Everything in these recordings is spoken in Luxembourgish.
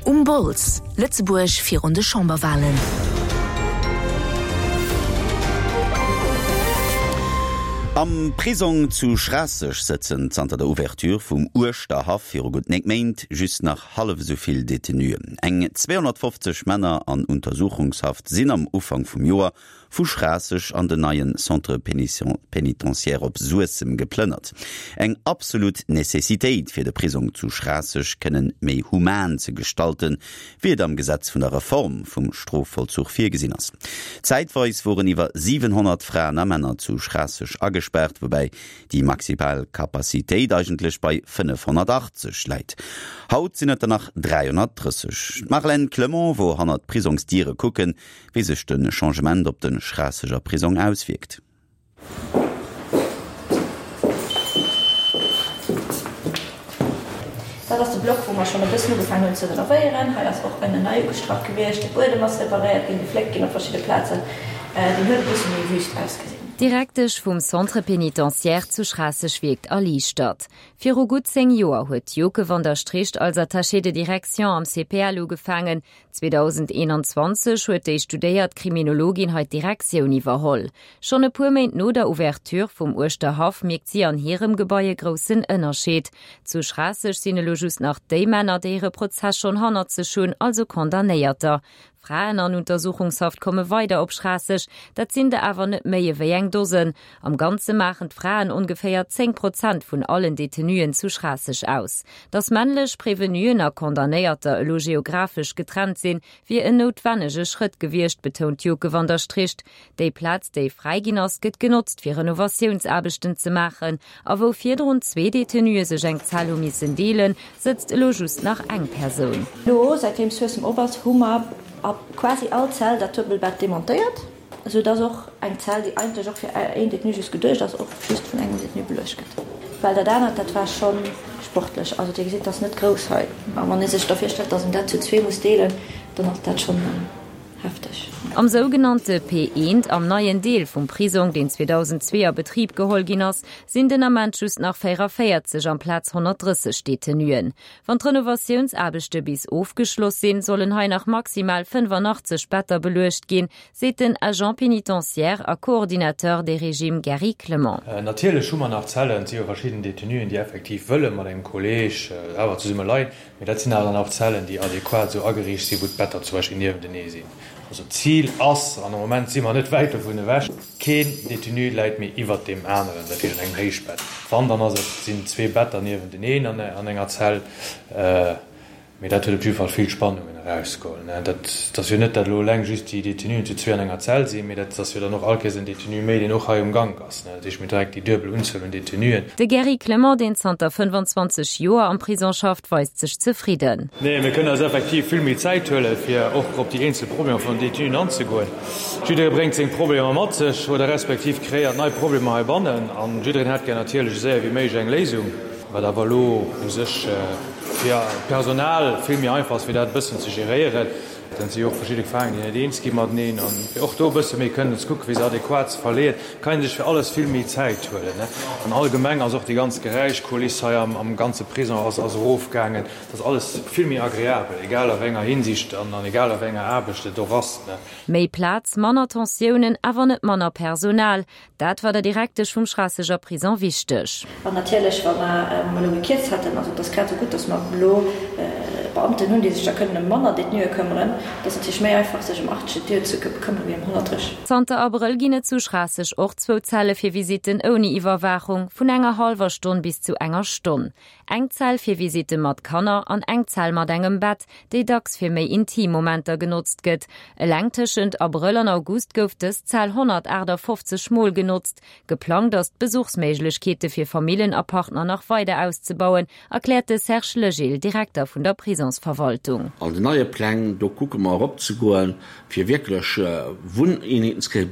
Um Bols, Lëtzebuerg virun de Chamberwalen. Am Prisong zu Schraasseg sëtzen zanter der Ouverture vum Uerschterhaff viru gutt 9 Méint just nach hallef esou vill Detenuen. Eng 250 Männer an Untersuchungshaft sinn am Ufank vum Joer vu Schraasseg an den neien Centre pénitentiaire op Suessem geplënnert. Eng absolut Necessitéit fir de Prisong zu Schraasseg kënnen méi human ze gestalten, wéi et am Gesetz vun der Reform vum Strofvollzuch virgesinn ass. Zäitweis woren iwwer 700 Fraen a Männer zu Schraasseg agespaart, woubäi déi maximal Capacitéit eigentlech bei 580 läit. Haut sinn et der nach 330. D'Marlène Clement wor hannert d'Prisongsdiere kucken, Wéi sech de Changement op de Schraasseger Prisong auswierkt. Dat ass de Block, wou mer schonn e bëssen ugefaangen hunn ze renovéieren. Hei ass och ënnen nei ugestrach gewiescht, de Buedem ass reparéiert ginn, gefléckt ginn op verschidde Plazen. Deen huet e bësse méi wüst ausgesinn. D'Direktesch vum Centre pénitentiaire zu Schraasseg wierkt erliichtert. Viru gutt 10 Joer huet d'Joke van der Stricht als Attachée de direction am CPL ugefaangen. 2021 huet déi studéiert Kriminologin hei d'Direktioun iwwerholl. Schonn e puer Méint no der Ouverture vum Uerschterhaff mierkt si an hirem Gebai e groussen Ënnerscheed. Zu Schraasseg sinn elo just nach déi Männer, déi hire Prozess schonn hannert sech hunn, also Condamnéierter. Fraen an Untersuchungshaft komme weider op Schraasseg, dat sinn der awer net méi ewéi eng Dosen. Am Ganze maachen d'Fraen ongeféier 10 Prozent vun allen Detenuen zu Schraasseg aus. Datt männlech Prevenuen a Condamnéierter elo geographesch getrennt sinn, wier en noutwennege Schrëtt gewiescht, betount d'Joke van der Stricht. Déi Plaz, déi fräi ginn ass, gëtt genotzt, fir Renovatiounsaarbechten ze maachen. A wou virdrun zwee Detenue sech eng Zell hu missen deelen, sëtzt elo just nach eng Persoun. Elo, säitdeem Suessem op ass, hu mer a quasi all Zell dat Duebelbett demontéiert. Esou dass och eng Zell, déi eigentlech och fir een Détenu just geduecht ass, och just vun engem Détenu beluecht gëtt. Well dat anert, dat war scho sportlech. Also Dir gesitt, dat ass net grouss hei. A wann ee sech da virstellt, dass een dat zu zwee muss deelen, dann ass dat schonn hefteg. Am sougenannte P1, am neien Deel vum Prisong, deen 2002 a Betrib geholl ginn ass, sinn den Ament just nach 44 amplaz 130 Detenuen. Wann d'Renovatiounsaarbechte bis ofgeschloss sinn, sollen hei nach maximal 85 Better beluecht ginn, seet den Agent pénitentiaire a Coordinateur des régimes Gary Clement. Natierlech hu mer nach Zellen, et si jo verschidden Detenuen, déi effektiv wëlle mat engem Kolleeg awer zesumme leien, mee dat sinn awer dann och Zellen, déi adequat esou ageriicht sinn, wou d'Better zum Beispill niewentenee sinn. Also d'Zil ass, an am Moment si mer net wäit dovun ewech, keen Detenu läit méi iwwert deem aneren, dat heescht an engem Héichbett. Wann, dann ass et, sinn zwee Better niewenteneen an enger Zell. Mee dat huet op jidde Fall vill Spannungen erausgeholl. Dat ass jo net, datt elo eleng just déi Detenuen zu zwee an enger Zell sinn, mee dat ass jo dann och allkéiers en Detenu méi, deen och hei um Gank ass. Dat heescht, mir hunn direkt déi duebel Unzuel un Detenuen. De Gary Clement, deen zanter 25 Joer am Prison schafft, weist sech zefridden. Nee, mir kënnen eis effektiv vill méi Zäit huelen, fir och op déi eenzel Problemer vun den Detenuen anzegoen. Jidderee bréngt seng Problemer mat sech oder respektiv kreéiert nei Problemer heibannen an jiddereen hätt gär natierlech esou séier wéi méiglech eng Léisung, wat awer elo u sech fir d'Personal vill méi einfach ass, fir dat e bëssen ze geréieren. Dann si jo och verschidde Gefaangen, déi net eens gi mateneen. An fir och do e bësse méi kënnen ze kucken, fir se adequat ze verleeën, kann ee sech fir alles vill méi Zäit huelen. An allgemeng ass och déi ganz Geräischkuliss hei am ganze Prison ass erofgaangen. Et ass alles vill méi agreabel, egal a wéi enger Hinsicht an egal a wéi enger Aarbecht et och ass. Méi Plaz, manner Tensiounen, awer net manner Personal. Dat war der Direktesch vum Schraasseger Prison wichteg. An natierlech, wa mer elo gekierzt hätten, also et ass grad esou gutt, datt mer elo Beamten hunn, déi sech da kënnen ëm manner Détenuë këmmeren. Et ass natierlech méi einfach, sech ëm 80 Détenuë ze këmmere wéi ëm 130. Zanter Abrëll ginn et zu Schraasseg och zwou Zelle fir Visitten ouni Iwwerwaachung, vun enger hallwer Stonn bis zu enger Stonn. Eng Zell fir Visitte mat Kanner an eng Zell mat engem Bett, déi dacks fir méi intim Momenter genotzt gëtt. Eleng tëschent Abrëll an August gouf dës Zell 158 Mol genotzt. Geplangt ass, d'Besuchsméiglechkeete fir Famillen a Partner nach weider auszebauen, erkläert de Serge Legil, Direkter vun der Prisonsverwaltung. An den neie Pläng, do kucke mer eropzegoen, fir wierklech Wunneenheeten ze kréien,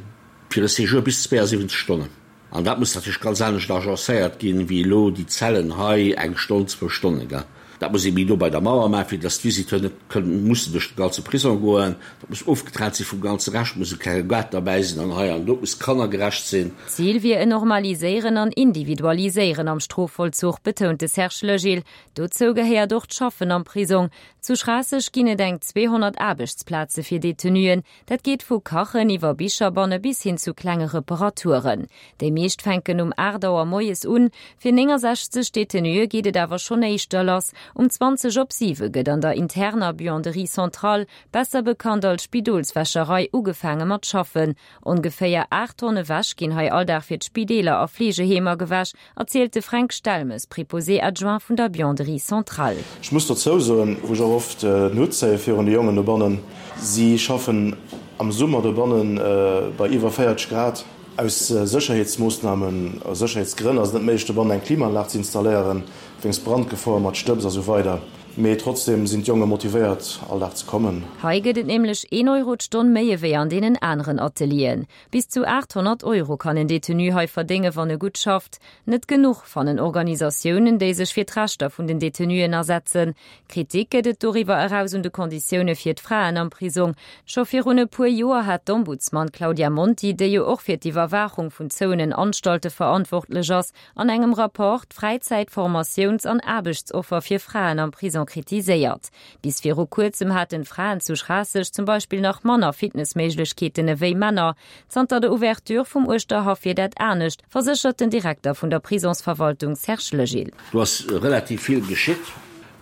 fir e Séjour bis 72 Stonnen. An dat muss natierlech ganz anescht agencéiert ginn, wéi elo déi Zellen hei, eng Stonn, zwou Stonnen, gell. Dat muss ee méi no bei der Mauer maachen, fir dass d'Visiteuren net kënnen mussen duerch de ganze Prisong goen. Dat muss ofgetrennt si vum ganze Rescht, muss e klenge Gaart derbäi sinn an hei an do. Et muss kannergerecht sinn. D'Zil wier en Normaliséieren an Individualiséieren am Strofvollzuch, betount de Serge Legil. Dozou gehéiert och d'Schaffen am Prisong. Zu Schraasseg ginn et eng 200 Aarbechtsplaze fir Detenuen. Dat geet vu Kachen iwwer Bicherbanne bis hin zu klenge Reparaturen. Déi meescht fänken um 8 Auer moies un. Fir 69 Detenuë geet et awer schonn éischter lass. Um 20 op 7 gëtt an der interner Buanderie centrale, besser bekannt als Spidolswäscherei, ugefaange mat schaffen. Ongeféier 8 Tonne Wäsch ginn hei all Dag fir d'Spideeler a Fleegeheemer gewäsch. Erzielt de Fränk Stelmes, Préposé adjoint vun der Buanderie centrale. Ech muss dozou soen, wou ech och oft den Hutt zéie virun de Jongen dobannen, si schaffen am Summer dobanne bei iwwer 40 Grad. Aus Sécherheetsmoossnamen, aus Sécherheetsgrënn ass et net méiglech dobannen eng Klimaanlag ze installéieren, wéinst Brandgefor mat Stëbs a sou weider. Mee trotzdeem sinn d'Jonge motivéiert all Dag ze kommen. Hei gëtt et nämlech een Euro d'Stonn méi ewéi an deenen aneren Atelieren. Bis zu 800 Euro kann en Detenu hei verdéngen, wann e gutt schafft. Net genuch, fannen Organisatiounen, déi sech fir d'Rechter vun den Detenuen asetzen. Kritik gëtt et doriwwer eraus un de Konditioune fir d'Fraen am Prisong. Scho virun e puer Joer hat d'Ombudsman Claudia Monti, déi jo och fir d'Iwwerwaachung vun zouenen Anstalte verantwortlech ass, an engem Rapport d'Fräizäit-, Formatiouns an Aarbechtsoffer fir Fraen am Prisong kritiséiert. Bis viru kuerzem haten Fraen zu Schraasseg zum Beispill nach manner Fitnessméiglechkeeten ewéi Männer. Zanter der Ouverture vum Uerschterhaff wier dat anescht, verséchert den Direkter vun der Prisonsverwaltung Serge Legil. Do ass relativ vill geschitt.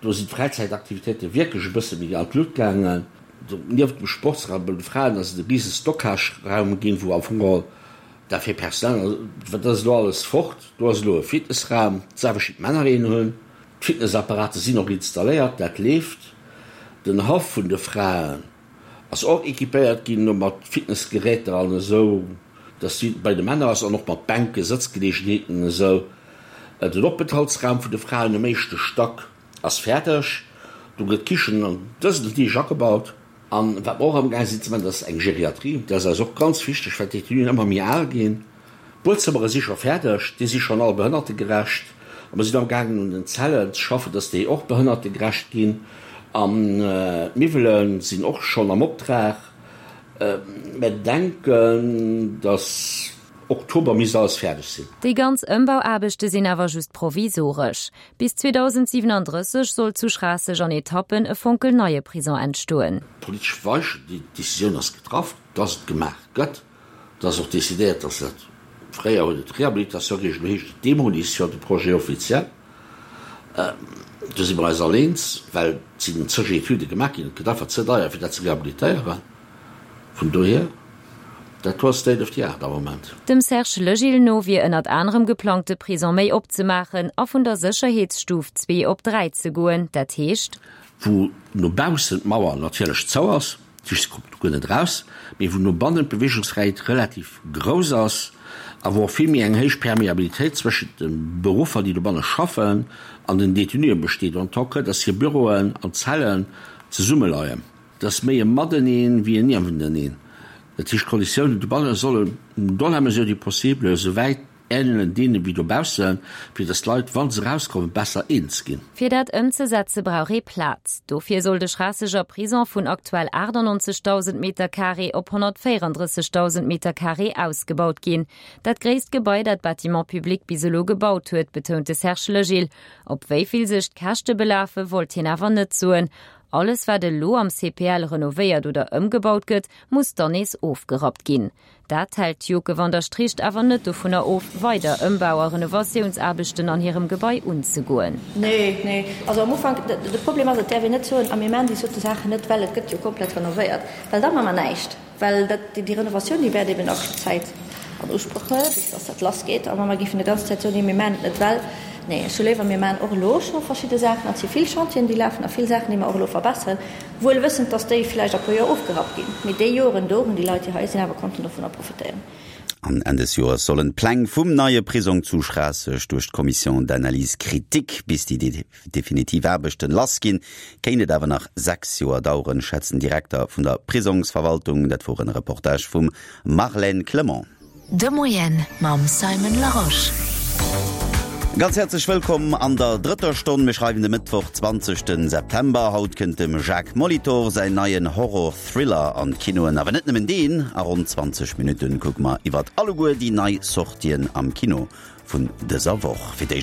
Do sinn d'Fräizäitaktivitéite wierklech e bësse méi an d'Lut gaangen. Nieft dem Sportsraum bei de Fraen ass et e rise Stockageraum ginn, wou am Fong geholl dat fir Personal, dat ass elo alles fort. Do ass elo e Fitnessraum, d'selwecht wéi d'Männer een hunn. D'Fitnessapparate sinn och installéiert, dat leeft. Den Haff vun de Fraen ass och équipéiert ginn elo mat Fitnessgeräter an esou, dass wéi bei de Männer ass, an och mat Bänken, Sëtzgeleegenheeten an esou. Den Openthaltsraum vun de Fraen um éischte Stack ass fäerdeg. Do gëtt d'Kichen an dësen Deeg agebaut. An wat mer och amgaang sinn ze maachen, dat ass eng Geriatrie. Dat ass eis och ganz wichteg, well d'Détenuen ëmmer méi al ginn. D'Buedzëmmere si scho fäerdeg, déi si schonn all behënnertegerecht. A mer sinn amgaangen un den Zellen ze schaffen, dass déi och behënnertegerecht ginn. An d'Miwwele sinn och schonn am Optrag. Mer denken, dass Oktober misst alles fäerdeg sinn. Déi ganz Ëmbauaarbechte sinn awer just provisoresch. Bis 2037 soll zu Schraasseg an Etappen e fonkelneie Prison entstoen. D'politesch Weichen, déi Decisioun ass getraff, dass et gemaach gëtt. Et ass och decidéiert, dass dat, fréier huet et Rehabilitation geheescht, elo heescht et Demolition, de Projet officiel. Do si mer eis all eens, well et sinn zeg Etüde gemaach ginn, et gëtt einfach ze deier, fir dat ze rehabilitéieren. Vun dohier, dat do ass State of the art am Moment. Dem Serge Legil no wier ënnert anerem geplangt, de Prison méi opzemaachen a vun der Sécherheetsstuf 2 op 3 ze goen, dat heescht. Wou no baussen d'Mauer natierlech zou ass, D'Fiiss kommt do guer net eraus, mee wou no bannen d'Beweegungsfräiheet relativ grouss ass a wou och vill méi eng héich Permeabilitéit zwëschent de Beruffer, déi dobanne schaffen, an den Detenuen besteet, en tant que dass hir Büroen an Zellen zesummeleien. Et ass méi e Mateneen wéi en Niewenteneen. Dat heescht, d'Konditiounen dobanne sollen dans la mesure du possible esou wäit Ähnelen deene wéi dobaussen, fir dass d'Leit, wa se erauskommen, besser eens ginn. Fir dat ëmzesetze brauch ee Plaz. Dofir soll de Schraasseger Prison vun aktuell 98.000 Metercarré op 134.000 Metercarré ausgebaut ginn. Dat gréisst Gebai, dat Bâtiments publics bis elo gebaut huet, betount de Serge Legil. Op wéi vill sech d'Käschte belafe wollt hien awer net soen. Alles wat elo am CPL renovéiert oder ëmgebaut gëtt, muss dann nees ofgerappt ginn. Dat hält d'Joke van der Stricht awer net dovunner of, weider Ëmbau a Renovatiounsaarbechten an hirem Gebai unzegoen. Nee, nee. Also am Ufank, de Problem ass, et däerf een net soen, a mir maachen déi sote Saachen net, well et gëtt jo komplett renovéiert, well da maache mer näischt, well dat, déi Renovatioun, déi wäert eben nach Zäit an Usproch huelen, bis dass dat lassgeet. A wa mer géifen déi ganz Zäit soen, nee, mir maachen et net, well, nee, ech hu léiwer, mir maachen och elo scho verschidde Saachen, an et si vill Chantieren, déi lafen a vill Saachen, déi mer och elo verbesseren, Wuel wëssend, dass déi villäicht a puer Joer ofgerappt ginn, mee déi Joren do hunn déi Leit, déi hei sinn, awer konnten dovunner profitéieren. An Enn des Joers sollen d'Pläng vum neie Prisong zu Schraasseg duerch d'Commission d'analyse critique. Bis déi definitiv Aarbechten lass ginn, kéint et awer nach 6 Joer daueren, schätzt den Direkter vun der Prisongsverwaltung. Dat wor en Reportage vum Marlène Clement. De Moien mam Simon Larosche. Ganz häerzlech wëllkomm an der drëtter Stonn. Mir schreiwen de Mëttwoch, 20 September. Haut kënnt dem Jacques Molitor säin neien Horror-Thriller an d'Kinoen. Awer net nëmmen deen, a ronn 20 Minutten kucke mer iwwert alleguer déi nei Sortien am Kino vun dëser Woch. Fir d'éischt.